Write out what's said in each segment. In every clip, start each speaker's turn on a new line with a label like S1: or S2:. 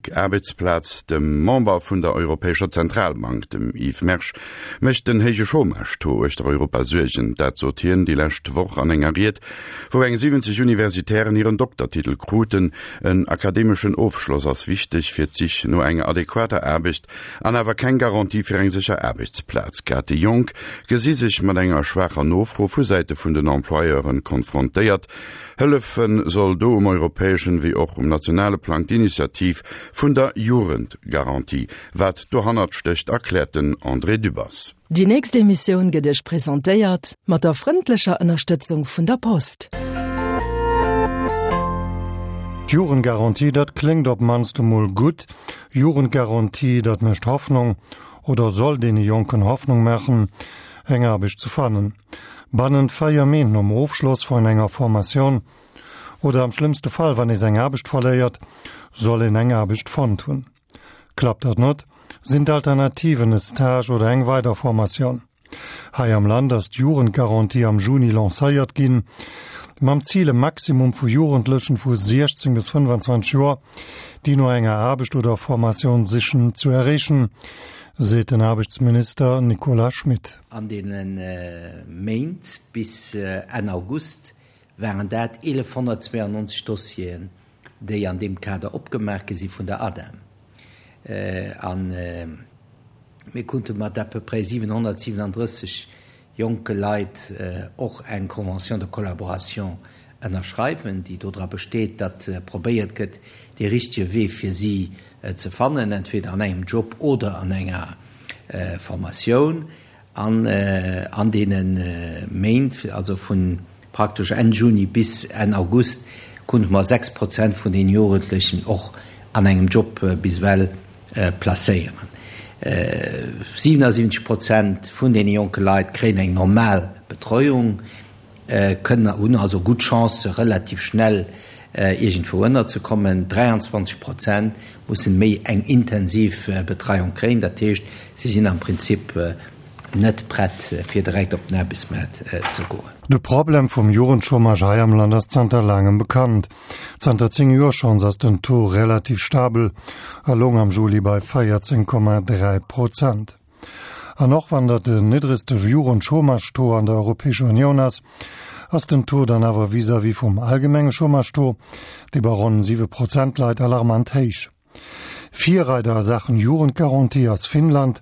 S1: Rubrik Aarbechtsplaz, Dem Member vun der Europäescher Zentralbank, dem Yves Mersch, mécht den héije Chômage-Taux uechter Europa Suergen. Dat sot hien déi lescht Woch an enger Ried, wou eng 70 Universitären hiren Doktertitel kruten. En akademeschen Ofschloss ass wichteg fir d'Sich no enger adequater Aarbecht an awer keng Garantie fir eng sécher Aarbechtsplaz. Grad déi Jonk gesi sech mat enger schwaacher Nofro vu Säite vun den Employeuren konfrontéiert. Hëllefe soll do um europäeschen wéi och um nationale Plang d'Initiativ vun der Jugendgarantie. Wat dohannert stécht, erkläert den André Dübbers.
S2: Déi nächst Emissioun gëtt Iech presentéiert mat der frëndlecher Ënnerstëtzung vun der Post.
S3: D'Jugendgarantie, dat kléngt op mannst emol gutt. Jugendgarantie, dat mécht Hoffnung oder soll deene Jonken Hoffnung maachen, eng Aarbecht ze fannen. Bannent 4 Méint nom Ofschloss vun enger Formatioun oder am schlëmmste Fall, wann ee seng Aarbecht verléiert, soll een eng Aarbecht fonnt hunn. Klappt dat net, sinn d'Alternativen e Stage oder eng weider Formatioun. Hei am Land ass d'Jugendgarantie am Juni lancéiert ginn, mam Zil e Maximum vu Jugendlechen vu 16 bis 25 Joer, déi no enger Aarbecht oder Formatioun sichen, zu erreechen, seet den Aarbechtsminister Nicolas Schmit.
S4: An deene Méint bis Enn August waren dat 1.192 Dossieren, déi an deem Kader opgemaach gi si vun der ADEM. A mir konnte mat à peu près 737 jonke Leit och eng Convention de collaboration ënnerschreiwen, déi dodra besteet, datt probéiert gëtt, dee richtege Wee fir si ze fannen, entweder an engem Job oder an enger Formatioun. An an deene Méint, also vu praktesch Enn Juni bis Enn August, konnte mer 6 Prozent vun den Jugendlechen och an engem Job bis ewell placéieren. 77 Prozent vun deene jonke Leit kréien eng normal Betreuung, kënnen, hunn also gutt Chancë relativ schnell iergendwou ënnerzekommen. 23 Prozent mussen méi eng intensiv Betreiung kréien, dat heescht, si sinn am Prinzip net prett fir direkt op den Aarbechtsmaart ze goen.
S3: De Problem vum Jugendchômage hei am Land ass zanter laangem bekannt. Zanter 10 Joer schonns ass den Taux relativ stabel a loung am Juli bei 14,3 Prozent. An och wann dat den niddregste Jugendchômage-Taux an der Europäescher Unioun ass, ass den Taux dann awer vis-à-vis vum allgemenge Chômage-Taux, dee bei ronn 7 Prozent leit, alarmant héich. Virreider a Saachen Jugendgarantie ass Finnland,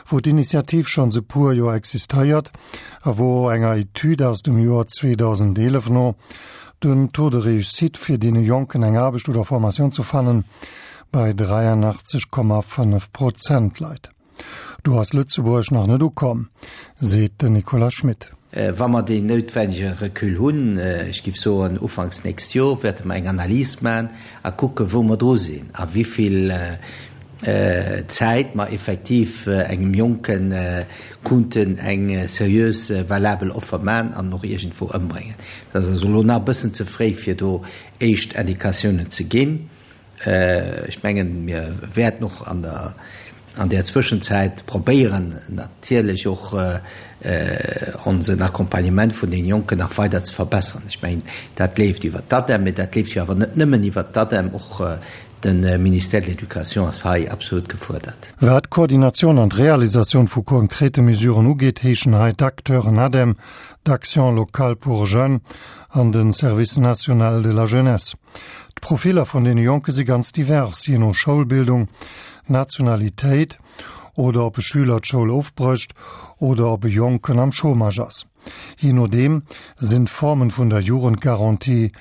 S3: wou d'Initiativ schonns e puer Joer existéiert a wou enger Etüd aus dem Joer 2011 no den Taux de réussite fir deene Jonken eng Aarbecht oder Formatioun ze fannen bei 83,5 Prozent leit. Do ass Lëtzebuerg nach net ukomm, seet den Nicolas Schmit.
S4: Wa mer deen noutwennege Recul hunn, ech géif soen ufanks nächst Jor, wäerte mer eng Analys maachen a kucken, wou mer dru sinn a wéi vill Zäit mer effektiv engem Jonke kunnten eng seriös, valabel Offer maachen an och iergendwou ëmbréngen. Dat ass also elo nach e bëssen ze fréi, fir do éischt Indikatiounen ze ginn. Ech mengen, mir wäerten och an der, an där Zwëschenzäit probéieren, natierlech och onsen Accompagnement vun deene Jonken nach weider ze verbessern. Ech mengen, dat leeft iwwert d'ADEM, mee dat leeft jo awer net nëmmen iwwert d'ADEM. Och de Ministère de l'Éducation ass hei absolut gefuerdert.
S3: Wat d'Koordinatioun an d'Realisatioun vu konkrete Mesuren ugeet, heeschen hei d'Acteuren ADEM, d'Action locale pour jeunes an de Service national de la jeunesse. D'Profiller vun deene Jonke si ganz divers, jee no Schoulbildung, Nationalitéit oder ob e Schüler d'Schoul ofbrécht oder ob e Jonken am Chômage ass. Jee nodeem sinn d'Formen vun der Jugendgarantie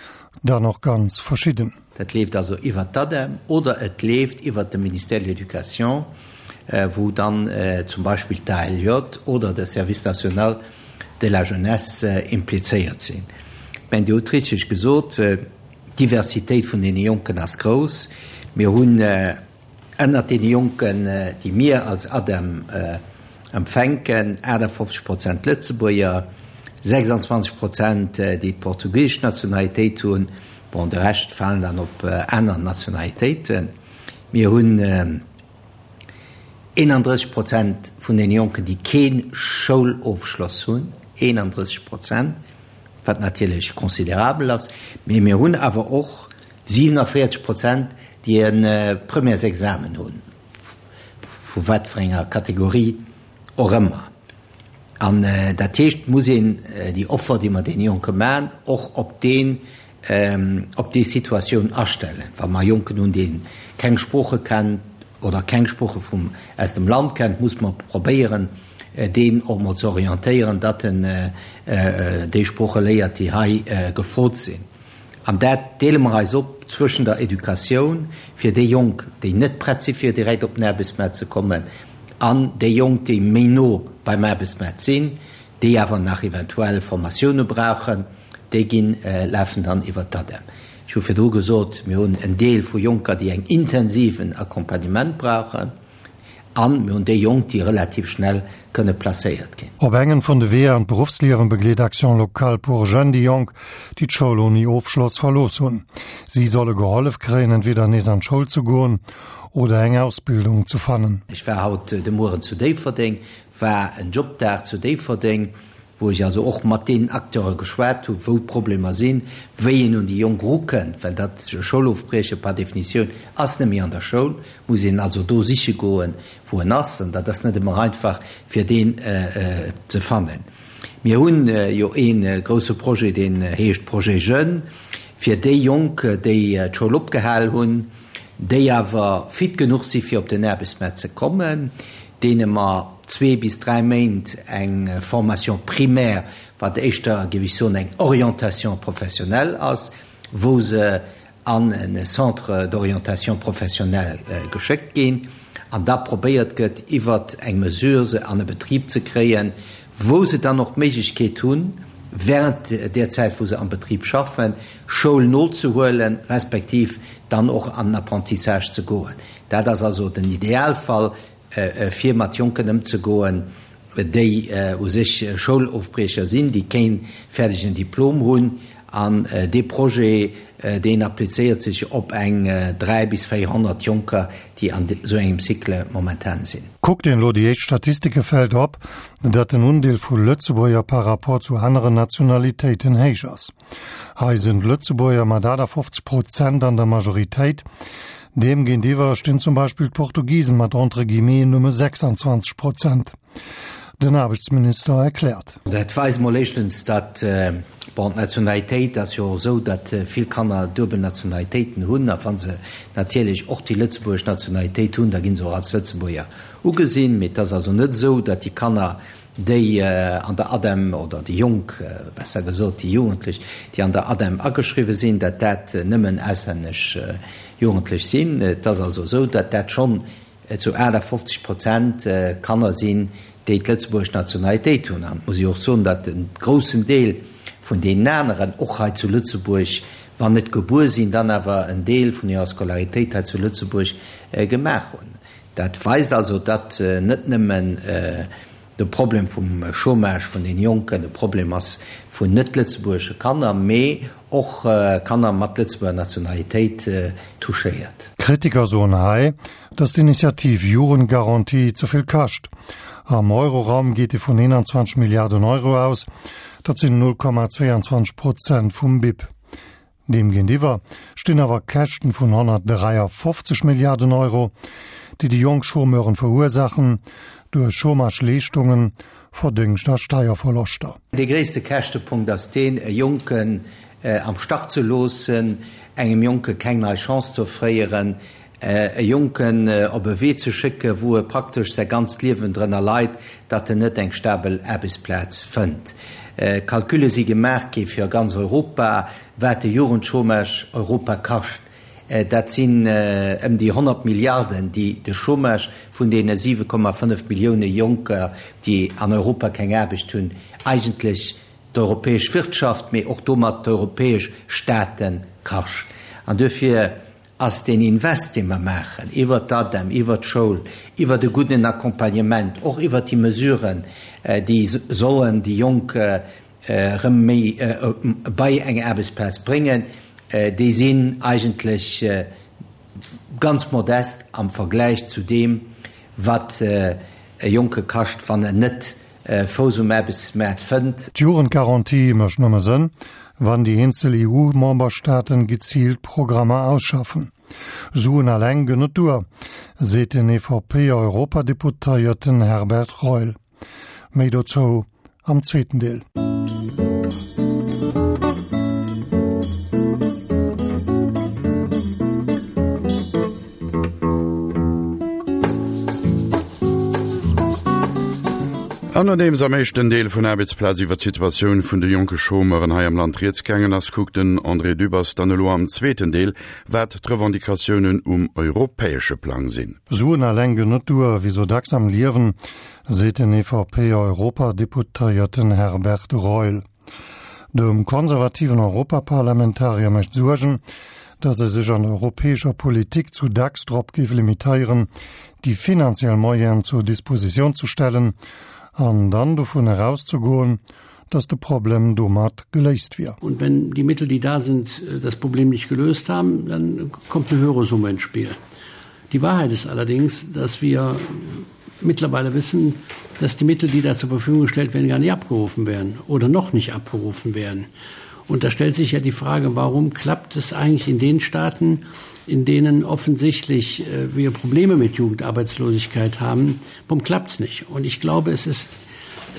S3: dann och ganz verschidden.
S4: Dat leeft also iwwert d'ADEM oder et leeft iwwert de Ministère de l'Éducation, wou dann zum Beispill d'ALJ oder de Service national de la jeunesse implizéiert sinn. Ech mengen, Dir hutt richteg gesot, d'Diversitéit vun deene Jonken ass grouss. Mir hunn ënnert deene Jonken, déi mir als ADEM empfänken, 58 Prozent Lëtzebuerger, 26 Prozent, déi d'portugisesch Nationalitéit hunn. Bon, de Rescht falen dann op aner Nationalitéiten. Mir hunn 31 Prozent vun den Jonken, déi kee Schoulofschloss hunn, 31 Prozent, wat natierlech considerabel ass. Mee mir hunn awer och 47 Prozent, déi. déi e Premièresexamen hunn, vu wat fir enger Kategorie och ëmmer. An dat heescht, et muss een déi Offer, déi mer deene Jonke maachen, och op deen, op déi Situatioun astellen. Wa mer e Jonken hunn, dee keng Sprooche kennt oder keng Sprooche vum, aus dem Land kennt, muss mer probéieren, deen och mol ze orientéieren, datt en déi Sprooche léiert, déi hei gefrot sinn. An dat deele mer eis op zwëschen der Educatioun fir déi Jonk, déi net prett si fir direkt op den Aarbechtsmaart ze kommen, an déi Jonk, déi méi no beim Aarbechtsmaart sinn, déi awer nach eventuell Formatioune brauchen, déi ginn, lafen dann iwwert d'ADEM. Ech hu virdru gesot, mir hunn en Deel vu Jonker, déi eng intensiven Accompagnement brauchen. An mir hunn déi Jonk, déi relativ schnell kënne placéiert ginn.
S3: Op engem vun de Weeër an d'Beruffsliewen begleet Action Locale pour Jeunes déi Jonk, déi d'Schoul ouni Ofschloss verlooss hunn. Si solle gehollef kréien, entweder nees an d'Schoul ze goen oder eng Ausbildung ze fannen.
S4: Ech war haut de Mueren zu Déifferdeng, war en Jobdag zu Déifferdeng, wou ech also och mat deenen Acteure geschwat hu wou d'Problemer sinn, wéi een un déi Jonk erukënnt, well dat Schoulofbrieche par Definitioun ass net méi an der Schoul, muss een also do siche goen, wou en ass, an dat ass net ëmmer einfach fir deen ze fannen. Mir hunn jo ee grouse Projet, deen heescht Projet Jeunes, fir déi Jonk, déi d'Schoul opgehal hunn, déi awer fit genuch si fir op den Aarbechtsmaart ze kommen, deene mer zwee bis dräi Méint eng Formation primaire, wat éischter, géif ech soen, eng Orientation professionnelle ass, wou se an e Centre d'orientation professionnelle geschéckt ginn an da probéiert gëtt, iwwert eng Mesure se an e Betrib ze kréien, wou se dann och d'Méiglechkeet hunn, während där Zäit, wou se am Betrib schaffen, Schoul nozehuelen, respektiv dann och an den Apprentissage ze goen. Dat ass also den Idealfall, fir mat Jonken ëmzegoen, déi u sech Schoulofbriecher sinn, déi keen fäerdegen Diplom hunn. An dee Projet, deen applizéiert sech op eng 3 bis 400 Jonker, déi an esou engem Cycle momentan sinn.
S3: Kuckt een elo déi éischt Statistike fält op, datt den Undeel vu Lëtzebuerger par rapport zu aneren Nationalitéiten héich ass. Hei sinn d'Lëtzebuerger mat 58 Prozent an der Majoritéit. Deem géintiwwer stinn zum Beispill d'Portugisen mat entre guillemets nëmme 26 Prozent. Den Aarbechtsminister erkläert.
S4: Dat weist mol éischtens, datt, bon, d'Nationalitéit ass jo och esou, datt vill Kanner duebel Nationalitéiten hunn. A wa se natierlech och déi lëtzebuergesch Nationalitéit hunn, da gi se och als Lëtzebuerger ugesinn. Mee et ass also net esou, datt déi Kanner, déi an der ADEM, oder déi Jonk besser gesot, déi Jugendlech, déi an der ADEM ageschriwwen sinn, datt dat nëmmen auslännesch Jugendlech sinn. Et ass also esou, datt dat schonn zu 58 Prozent Kanner sinn, déi d'lëtzebuergesch Nationalitéit hunn. An et muss ee och soen, datt e groussen Deel vun deenen aneren och hei zu Lëtzebuerg, wann net gebuer sinn, dann awer en Deel vun hirer Scolaritéit hei zu Lëtzebuerg gemaach hunn. Dat weist also, datt net nëmmen de Problem vum Chômage vun den Jonken e Problem ass vun net-lëtzebuergesche Kanner, mee och Kanner mat Lëtzebuerger Nationalitéit touchéiert.
S3: Kritiker soen hei, datt d'Initiativ Jugendgarantie ze vill kascht. Am Euroraum geet ee vun 21 Milliarden Euro aus, dat sinn 0,22 Prozent vum BIP. Deem géintiwwer stinn awer Käschten vun 153 Milliarden Euro, déi déi jonk Chômeuren verursaachen, duerch Chômageleeschtungen, Verdéngscht a Steierverloschter.
S4: Dee gréisste Käschtepunkt ass deen, e Jonken am Stach ze loossen, engem Jonke keng nei Chance ze offréieren, e Jonken op e Wee ze schécken, wou e praktesch säi ganzt Liewen drënner leit, datt en net eng stabel Aarbechtsplaz fënnt. Calcule si gemaach gi fir ganz Europa, wat de Jugendchômage Europa kascht. Dat sinn ëm déi 100 Milliarden, déi de Chômage vun deene 7,5 Millioune Jonker, déi an Europa keng Aarbecht hunn, eigentlech d'europäesch Wirtschaft, mee och domat d'europäesch Staate kascht. An duerfir ass deen Invest, dee mer maachen iwwert d'ADEM, iwwert d'Schoul, iwwert e gudden Accompagnement, och iwwert déi Mesuren, déi sollen déi Jonk erëm méi bei eng Aarbechtsplaz bréngen, déi sinn eigentlech ganz modest am Vergläich zu deem, wat e Jonke kascht, wann en net Fouss um Aarbechtsmaart fënnt.
S3: D'Jugendgarantie mécht nëmme Sënn, wann déi eenzel EU-Memberstaaten geziilt Programmer ausschaffen. Suen alleng gënn net duer, seet den EVP-Europadeputéierten Herbert Reul. Méi dozou am zweeten Deel.
S1: An nodeems am éischten Deel vun Aarbechtsplaz iwwer d'Situatioun vun de jonke Chômeuren hei am Land rieds gaangen ass, kuckt den André Dübbers dann elo am zweeten Deel, wat d'Revendicatiounen um europäesche Plang sinn.
S3: Suen alleng ginn net duer, wéi sou dacks am Liewen, seet den EVP-Europadeputéierten Herbert Reul. Dem konservativen Europaparlamentarier mécht Suergen, datt e sech an der europäescher Politik zu dacks drop géif limitéieren, déi finanziell Moyenen zur Dispositioun ze stellen an dann dovun erauszegoen, datt de Problem domat geléist wier.
S5: Und wenn die Mittel, die da sind, das Problem nicht gelöst haben, dann kommt eine höhere Summe ins Spiel. Die Wahrheit ist allerdings, dass wir mittlerweile wissen, dass die Mittel, die da zur Verfügung gestellt werden, gar nicht abgerufen werden oder noch nicht abgerufen werden. Und da stellt sich ja die Frage, warum klappt es eigentlich in den Staaten, in denen offensichtlich äh, wir Probleme mit Jugendarbeitslosigkeit haben, warum klappt es nicht? Und ich glaube, es ist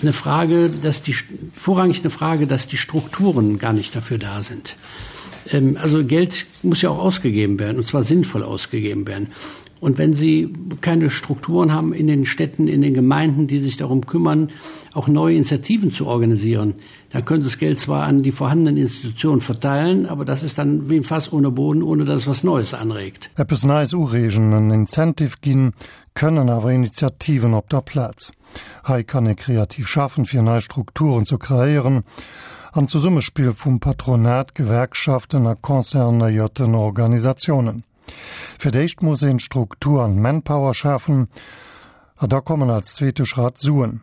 S5: eine Frage, dass die vorrangig eine Frage, dass die Strukturen gar nicht dafür da sind. Ähm, also Geld muss ja auch ausgegeben werden und zwar sinnvoll ausgegeben werden. Und wenn sie keine Strukturen haben in den Städten, in den Gemeinden, die sich darum kümmern, auch neue Initiativen zu organisieren, dann können sie das Geld zwar an die vorhandenen Institutionen verteilen, aber das ist dann wie ein Fass ohne Boden, ohne dass es was Neues anregt.
S3: Eppes Neies ureegen, en Incentive ginn, kënnen awer Initiativen op der Plaz. Hei kann ee kreativ schaffen, fir nei Strukturen ze kreéieren, am Zesummespill vum Patronat, Gewerkschaften a concernéierten Organisatiounen. Fir d'éischt muss een d'Struktur an d'Manpower schafen, a da kommen als zweete Schratt d'Suen.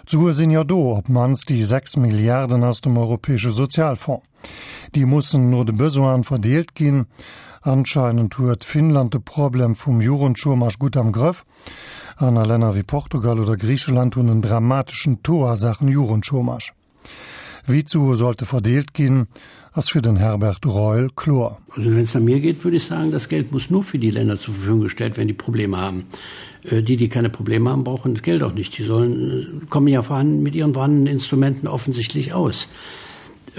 S3: D'Sue sinn jo do, op d'mannst déi 6 Milliarden aus dem Europäesche Sozialfonds. Déi mussen no de Besoine verdeelt ginn. Anscheinend huet Finnland de Problem vum Jugendchômage gutt am Grëff. Aner Länner wéi Portugal oder Griicheland hunn en dramateschen Taux a Saachen Jugendchômage. Wéi d'Sue sollte verdeelt ginn, ass fir den Herbert Reul kloer.
S5: Also wenn es nach mir geht, würde ich sagen, das Geld muss nur für die Länder zur Verfügung gestellt werden, die Probleme haben. Äh, die, die keine Probleme haben, brauchen das Geld auch nicht. Die sollen, äh, kommen ja vorhanden, mit ihren vorhandenen Instrumenten offensichtlich aus.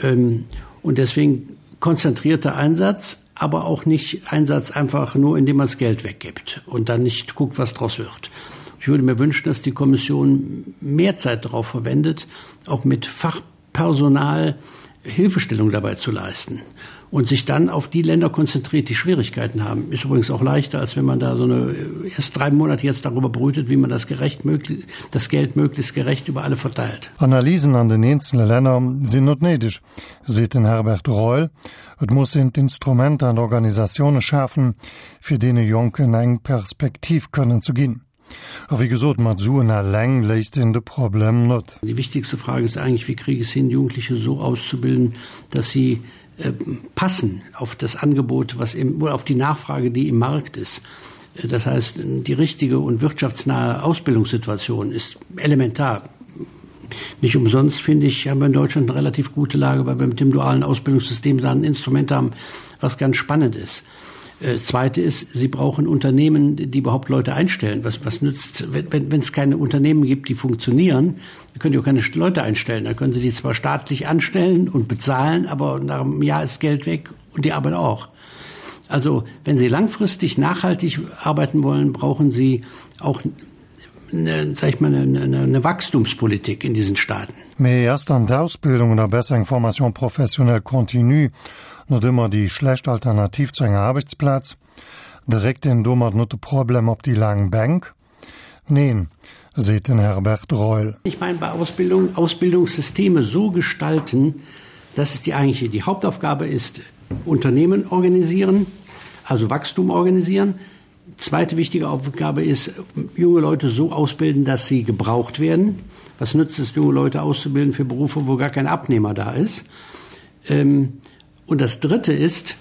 S5: Ähm, und deswegen konzentrierter Einsatz, aber auch nicht Einsatz einfach nur, indem man das Geld weggibt und dann nicht guckt, was draus wird. Ich würde mir wünschen, dass die Kommission mehr Zeit darauf verwendet, auch mit Fachpersonal Hilfestellung dabei zu leisten und sich dann auf die Länder konzentriert, die Schwierigkeiten haben. Ist übrigens auch leichter, als wenn man da so eine erst drei Monate jetzt darüber brütet, wie man das gerecht möglich, das Geld möglichst gerecht über alle verteilt.
S3: Analysen an den eenzele Länner sinn net néideg, seet den Herbert Reul. Et muss een d'Instrumenter an d'Organisatioune schafen, fir deene Jonken eng Perspektiv kënnen ze ginn. A wéi gesot, mat Suen eleng léist een de Problem net.
S5: Die wichtigste Frage ist eigentlich, wie kriege ich es hin, Jugendliche so auszubilden, dass sie äh, passen auf das Angebot, was im, oder auf die Nachfrage, die im Markt ist. Äh, das heißt, die richtige und wirtschaftsnahe Ausbildungssituation ist elementar. Nicht umsonst finde ich, haben wir in Deutschland eine relativ gute Lage, weil wir mit dem dualen Ausbildungssystem da ein Instrument haben, was ganz spannend ist. Äh, zweite ist, sie brauchen Unternehmen, die überhaupt Leute einstellen. Was, was nützt, wenn, wenn es keine Unternehmen gibt, die funktionieren, dann können die auch keine Leute einstellen. Dann können sie die zwar staatlich anstellen und bezahlen, aber nach einem Jahr ist Geld weg und die Arbeit auch. Also wenn Sie langfristig nachhaltig arbeiten wollen, brauchen Sie auch eine, sag ich mal, eine, eine, eine Wachstumspolitik in diesen Staaten.
S3: Mee ass dann d'Ausbildung oder besser eng Formation professionnelle continue net ëmmer déi schlecht Alternativ zu enger Aarbechtsplaz? Dréckt een domat net de Problem op déi laang Bänk? Neen, seet den Herbert Reul.
S5: Ich meine bei Ausbildung Ausbildungssysteme so gestalten, dass es die eigentliche die Hauptaufgabe ist, Unternehmen organisieren, also Wachstum organisieren. Zweite wichtige Aufgabe ist, junge Leute so ausbilden, dass sie gebraucht werden. Was nützt es, junge Leute auszubilden für Berufe, wo gar kein Abnehmer da ist? Ähm, und das Dritte ist,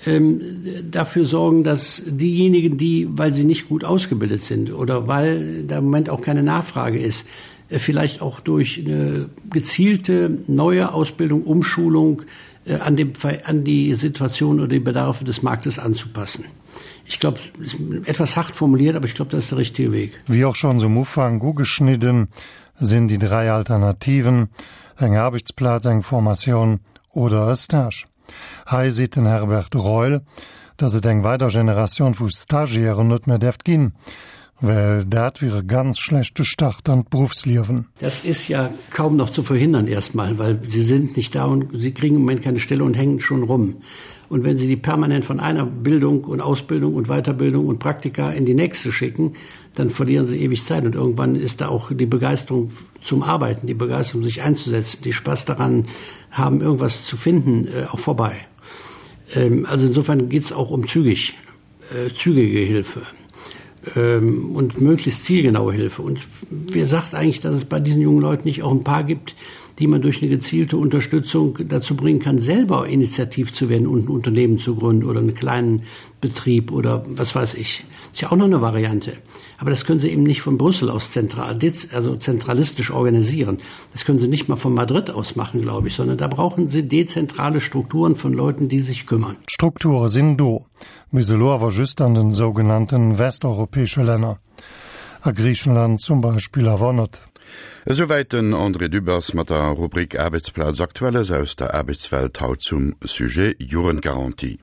S5: ähm, dafür sorgen, dass diejenigen, die, weil sie nicht gut ausgebildet sind oder weil da im Moment auch keine Nachfrage ist, äh, vielleicht auch durch eine gezielte neue Ausbildung, Umschulung äh, an, dem, an die Situation oder die Bedarfe des Marktes anzupassen. Ich glaube, ist etwas hart formuliert, aber ich glaube, das ist der richtige Weg.
S3: Wéi och schonns um Ufank ugeschnidden, sinn déi 3 Alternativen, eng Aarbechtsplaz, eng Formatioun oder e Stage. Hei seet den Herbert Reul, datt et eng weider Generatioun vu Stagiairen net méi däerft ginn, well dat wier e ganz schlechte Start an d'Beruffsliewen.
S5: Das ist ja kaum noch zu verhindern erstmal, weil sie sind nicht da und sie kriegen im Moment keine Stelle und hängen schon rum. Und wenn Sie die permanent von einer Bildung und Ausbildung und Weiterbildung und Praktika in die nächste schicken, dann verlieren sie ewig Zeit und irgendwann ist da auch die Begeisterung zum Arbeiten, die Begeisterung sich einzusetzen, die Spaß daran haben, irgendwas zu finden, äh, auch vorbei. Ähm, also insofern geht es auch um zügig, äh, zügige Hilfe ähm, und möglichst zielgenaue Hilfe. Und wer sagt eigentlich, dass es bei diesen jungen Leuten nicht auch ein paar gibt, die man durch eine gezielte Unterstützung dazu bringen kann, selber initiativ zu werden und ein Unternehmen zu gründen oder einen kleinen Betrieb oder was weiß ich. Ist ja auch noch eine Variante. Aber das können sie eben nicht von Brüssel aus zentral, also zentralistisch organisieren. Das können sie nicht mal von Madrid aus machen, glaube ich, sondern da brauchen sie dezentrale Strukturen von Leuten, die sich kümmern.
S3: D'Strukture sinn do, bis elo awer just an den sougenannten westeuropäesche Länner. A Griichenland zum Beispill awer net.
S1: Esouwäit den André Dübbers mat der Rubrik Aarbechtsplaz Aktuelles aus der Aarbechtswelt haut zum Sujet Jugendgarantie.